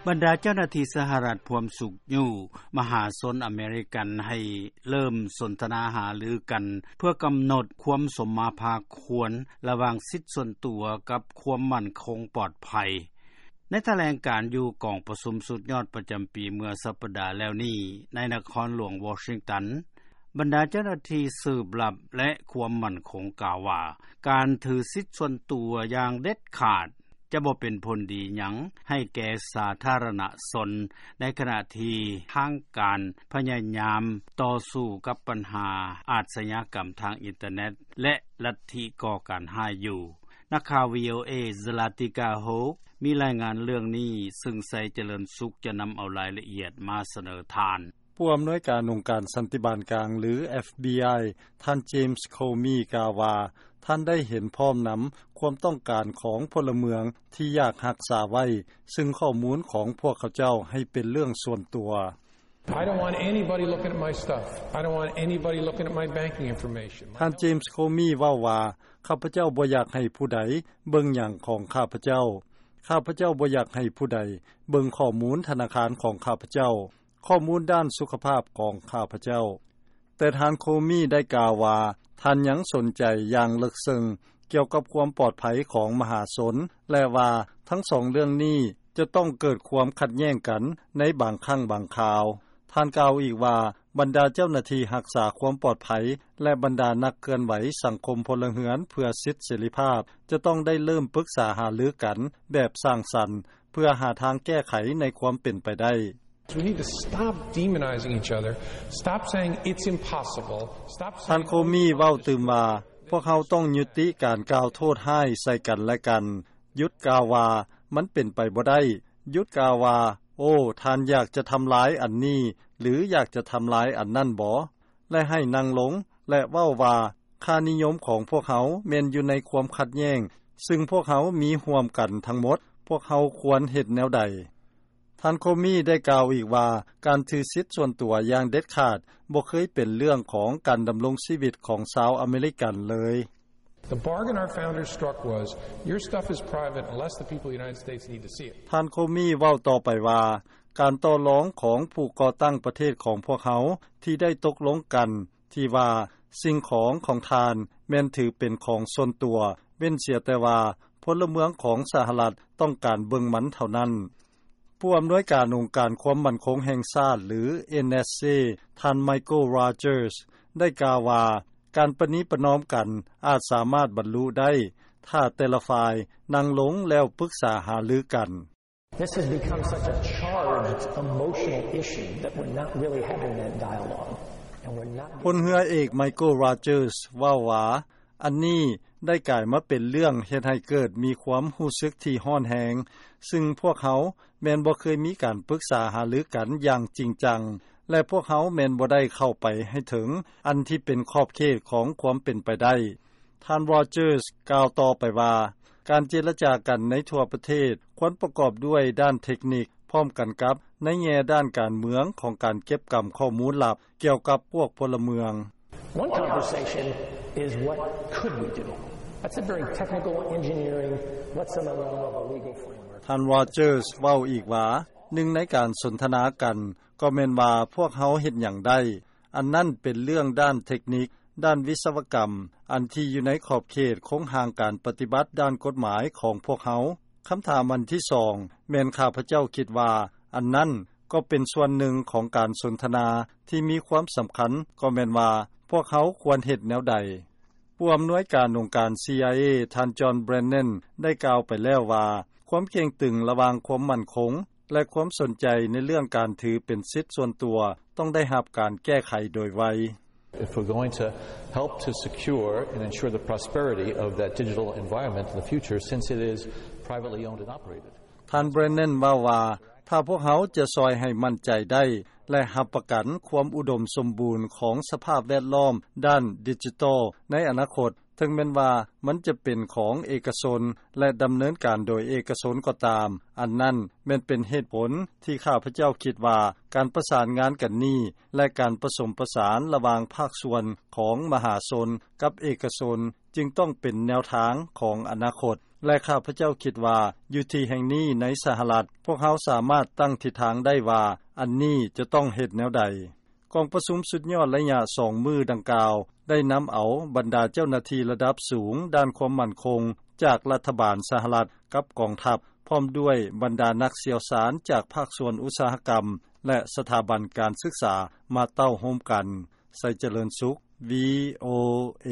ບັນດາເຈົ້າໜ້າທີ່ສະຫະລັດພວມຊຸກຍູ້ມະຫາຊົນອາເມລິກັນໃຫ້ເລີ່ມສົນທະນາຫາລືກັນ ເພື່ອກຳນົດຄວາມສົມມາພາຄວນລະຫວ່າງສິດສ່ວນຕົວກັບຄວາມໝັ້ນຄົງປອດໄພ. ໃນຖະແຫຼງການຢູ່ກອງປະຊຸມສຸດຍອດປະຈຳປີເມື່ອສັບປະດາແລ້ວນີ້ ໃນນະຄອນຫຼວງວໍຊິງຕັນ, ບັນດາເຈົ້າໜ້າທີ່ສືບລັບ ແລະ ຄວາມໝັ້ນຄົງກ່າວວ່າ ການຖືສິດສ່ວນຕົວຢ່າງເດັດຂາດ ຈະບໍ່ເປັນຜົນດີຫຍັງໃຫ້ແກ່ສາທາລະນະຊົນ ໃນຂະນະທີ່ທາງການພະຍາຍາມຕໍ່ສູ້ກັບບັນຫາອາຊະຍາກຳທາງອິນເຕີເນັດ ແລະ ລັດທິກໍ່ການຮ້າຍຢູ່. ນັກຂ່າວ ວີໂອເອ Zlatica Hoke ມີລາຍງານເລື່ອງນີ້ ຊຶ່ງ ໄຊຈະເລີນສຸກ ຈະນຳເອົາລາຍລະອຽດມາສະເໜີທ່ານ. ຜູ້ອຳນວຍການອົງການສັນຕິບານກາງ ຫຼື ເອັຟບີໄອ ທ່ານ James Comey ກ່າວວ່າ ທ່ານໄດ້ເຫັນພ້ອມນຳຄວາມຕ້ອງການຂອງພົນລະເມືອງທີ່ຢາກຮັກສາໄວ້ ຊຶ່ງຂໍ້ມູນຂອງພວກເຂົາເຈົ້າໃຫ້ເປັນເລື່ອງສ່ວນຕົວ. I don't want anybody looking at my stuff. I don't want anybody looking at my banking information. ທ່ານ James Comey ເວົ້າວ່າ ຂ້າພະເຈົ້າບໍ່ຢາກໃຫ້ຜູ້ໃດເບິ່ງຫຍັງຂອງຂ້າພະເຈົ້າ. ຂ້າພະເຈົ້າບໍ່ຢາກໃຫ້ຜູ້ໃດເບິ່ງຂໍ້ມູນທະນາຄານຂອງຂ້າພະເຈົ້າ. ຂໍ້ມູນດ້ານສຸຂະພາບຂອງຂ້າພະເຈົ້າ. ແຕ່ທ່ານ Comey ໄດ້ກ່າວວ່າ ທ່ານຍັງສົນໃຈຢ່າງເລິກເຊິ່ງກ່ຽວກັບຄວາມປອດໄພຂອງມະຫາຊົນ ແລະ ວ່າທັງສອງເລື່ອງນີ້ຈະຕ້ອງເກີດຄວາມຂັດແຍ່ງກັນໃນບາງຄັ້ງບາງຄາວ. ທ່ານກ່າວອີກວ່າ ບັນດາເຈົ້າໜ້າທີ່ຮັກສາຄວາມປອດໄພ ແລະ ບັນດານັກເຄື່ອນໄຫວສັງຄົມພົນລະເຮືອນເພື່ອສິດເສລີພາບ ຈະຕ້ອງໄດ້ເລີ່ມປຶກສາຫາລືກັນແບບສ້າງສັນ ເພື່ອຫາທາງແກ້ໄຂໃນຄວາມເປັນໄປໄດ້. We need to stop demonizing each other, stop saying it's impossible, stop saying ທ່ານ Comey ເວົ້າຕື່ມວ່າ ພວກເຮົາຕ້ອງຍຸຕິການກ່າວໂທດຮ້າຍໃສ່ກັນແລະກັນ, ຢຸດກ່າວວ່າມັນເປັນໄປບໍ່ໄດ້, ຢຸດກ່າວວ່າ ໂອ້ ທ່ານຢາກຈະທຳລາຍອັນນີ້ ຫຼື ຢາກຈະທຳລາຍອັນນັ້ນບໍ? ແລະ ໃຫ້ນັ່ງລົງ ແລະ ເວົ້າວ່າ ຄ່ານິຍົມຂອງພວກເຮົາແມ່ນຢູ່ໃນຄວາມຂັດແຍ່ງ ຊຶ່ງພວກເຮົາມີຮ່ວມກັນທັງໝົດ, ພວກເຮົາຄວນເຮັດແນວໃດ? ທ່ານ Comey ໄດ້ກ່າວອີກວ່າ ການຖືສິດສ່ວນຕົວຢ່າງເດັດຂາດບໍ່ເຄີຍເປັນເລື່ອງຂອງການດຳລົງຊີວິດຂອງຊາວອາເມລິກັນເລີຍ. The bargain our founders struck was, your stuff is private unless the people of the United States need to see it. ທ່ານ Comey ເວົ້າຕໍ່ໄປວ່າ ການຕໍ່ລອງຂອງຜູ້ກໍ່ຕັ້ງປະເທດຂອງພວກເຮົາທີ່ໄດ້ຕົກລົງກັນ ທີ່ວ່າສິ່ງຂອງຂອງທ່ານແມ່ນຖືເປັນຂອງສ່ວນຕົວ ເວັ້ນເສຍແຕ່ວ່າພົນລະເມືອງຂອງສະຫະລັດຕ້ອງການເບິ່ງມັນເທົ່ານັ້ນ. ຜູ້ອຳນວຍການອົງການຄວາມໝັ້ນຄົງແຫ່ງຊາດ ຫຼື NSC ທ່ານ Michael Rogers ໄດ້ກ່າວວ່າ ການປະນີປະນອມກັນອາດສາມາດບັນລຸໄດ້ ຖ້າແຕ່ລະຝ່າຍນັ່ງລົງແລ້ວປຶກສາຫາລືກັນ. This has become such a charged, emotional issue that we're not really having that dialogue, and we're not ພົນເຮືອເອກ Michael Rogers ເວົ້າວ່າ ອັນນີ້ໄດ້ກາຍມາເປັນເລື່ອງເຮັດໃຫ້ເກີດມີຄວາມຮູ້ສຶກທີ່ຮ້ອນແຮງ, ຊຶ່ງພວກເຮົາແມ່ນບໍ່ເຄີຍມີການປຶກສາຫາລືກັນຢ່າງຈິງຈັງ ແລະ ພວກເຮົາແມ່ນບໍ່ໄດ້ເຂົ້າໄປໃຫ້ເຖິງອັນທີ່ເປັນຂອບເຂດຂອງຄວາມເປັນໄປໄດ້. ທ່ານ Rogers ກ່າວຕໍ່ໄປວ່າ ການເຈລະຈາກັນໃນທົ່ວປະເທດຄວນປະກອບດ້ວຍດ້ານເທັກນິກ ພ້ອມກັນກັບໃນແງ່ດ້ານການເມືອງຂອງການເກັບກຳຂໍ້ມູນລັບກ່ຽວກັບພວກພົນລະເມືອງ. One conversation is what could we do? That's a very technical engineering, what's in the realm of a legal framework. ທ່ານ Rogers ເວົ້າອີກວ່າ ໜຶ່ງໃນການສົນທະນາກັນກໍແມ່ນວ່າພວກເຮົາເຮັດຫຍັງໄດ້. ອັນນັ້ນເປັນເລື່ອງດ້ານເທັກນິກ, ດ້ານວິສະວະກຳ, ອັນທີ່ຢູ່ໃນຂອບເຂດໂຄງຮ່າງການປະຕິບັດດ້ານກົດໝາຍຂອງພວກເຮົາ. ຄຳຖາມອັນທີສອງ ແມ່ນຂ້າພະເຈົ້າຄິດວ່າ ອັນນັ້ນກໍເປັນສ່ວນໜຶ່ງຂອງການສົນທະນາທີ່ມີຄວາມສຳຄັນ, ກໍແມ່ນວ່າພວກເຮົາຄວນເຮັດແນວໃດ? ຜູ້ອຳນວຍການອົງການ CIA ທ່ານ John Brennan ໄດ້ກ່າວໄປແລ້ວວ່າ ຄວາມເຄັ່ງຕຶງລະຫວ່າງຄວາມໝັ້ນຄົງ ແລະ ຄວາມສົນໃຈໃນເລື່ອງການຖືເປັນສິດສ່ວນຕົວ ຕ້ອງໄດ້ຮັບການແກ້ໄຂໂດຍໄວ. If we're going to help to secure and ensure the prosperity of that digital environment in the future, since it is privately owned and operated. ທ່ານ Brennan ເວົ້າວ່າ ຖ້າພວກເຮົາຈະຊ່ອຍໃຫ້ໝັ້ນໃຈໄດ້ ແລະ ຮັບປະກັນຄວາມອຸດົມສົມບູນຂອງສະພາບແວດລ້ອມດ້ານດິຈິຕອລໃນອະນາຄົດ, ເຖິງແມ່ນວ່າມັນຈະເປັນຂອງເອກະຊົນ ແລະ ດຳເນີນການໂດຍເອກະຊົນກໍຕາມ, ອັນນັ້ນແມ່ນເປັນເຫດຜົນທີ່ຂ້າພະເຈົ້າຄິດວ່າ ການປະສານງານກັນນີ້ ແລະ ການປະສົມປະສານລະຫວ່າງພາກສ່ວນຂອງມະຫາຊົນກັບເອກະຊົນ ຈຶ່ງຕ້ອງເປັນແນວທາງຂອງອະນາຄົດ. ແລະ ຂ້າພະເຈົ້າຄິດວ່າ ຢູ່ທີ່ແຫ່ງນີ້ ໃນສະຫະລັດ ພວກເຮົາສາມາດຕັ້ງທິດທາງໄດ້ວ່າ ອັນນີ້ຈະຕ້ອງເຮັດແນວໃດ. ກອງປະຊຸມສຸດຍອດໄລຍະ ສອງມື້ດັ່ງກ່າວ ໄດ້ນຳເອົາບັນດາເຈົ້າໜ້າທີ່ລະດັບສູງ ດ້ານຄວາມໝັ້ນຄົງ ຈາກລັດຖະບານສະຫະລັດ ກັບກອງທັບ ພ້ອມດ້ວຍບັນດານັກຊ່ຽວຊານ ຈາກພາກສ່ວນອຸດສາຫະກຳ ແລະ ສະຖາບັນການສຶກສາ ມາເຕົ້າໂຮມກັນ. ໄຊຈະເລີນສຸກ ວີໂອເອ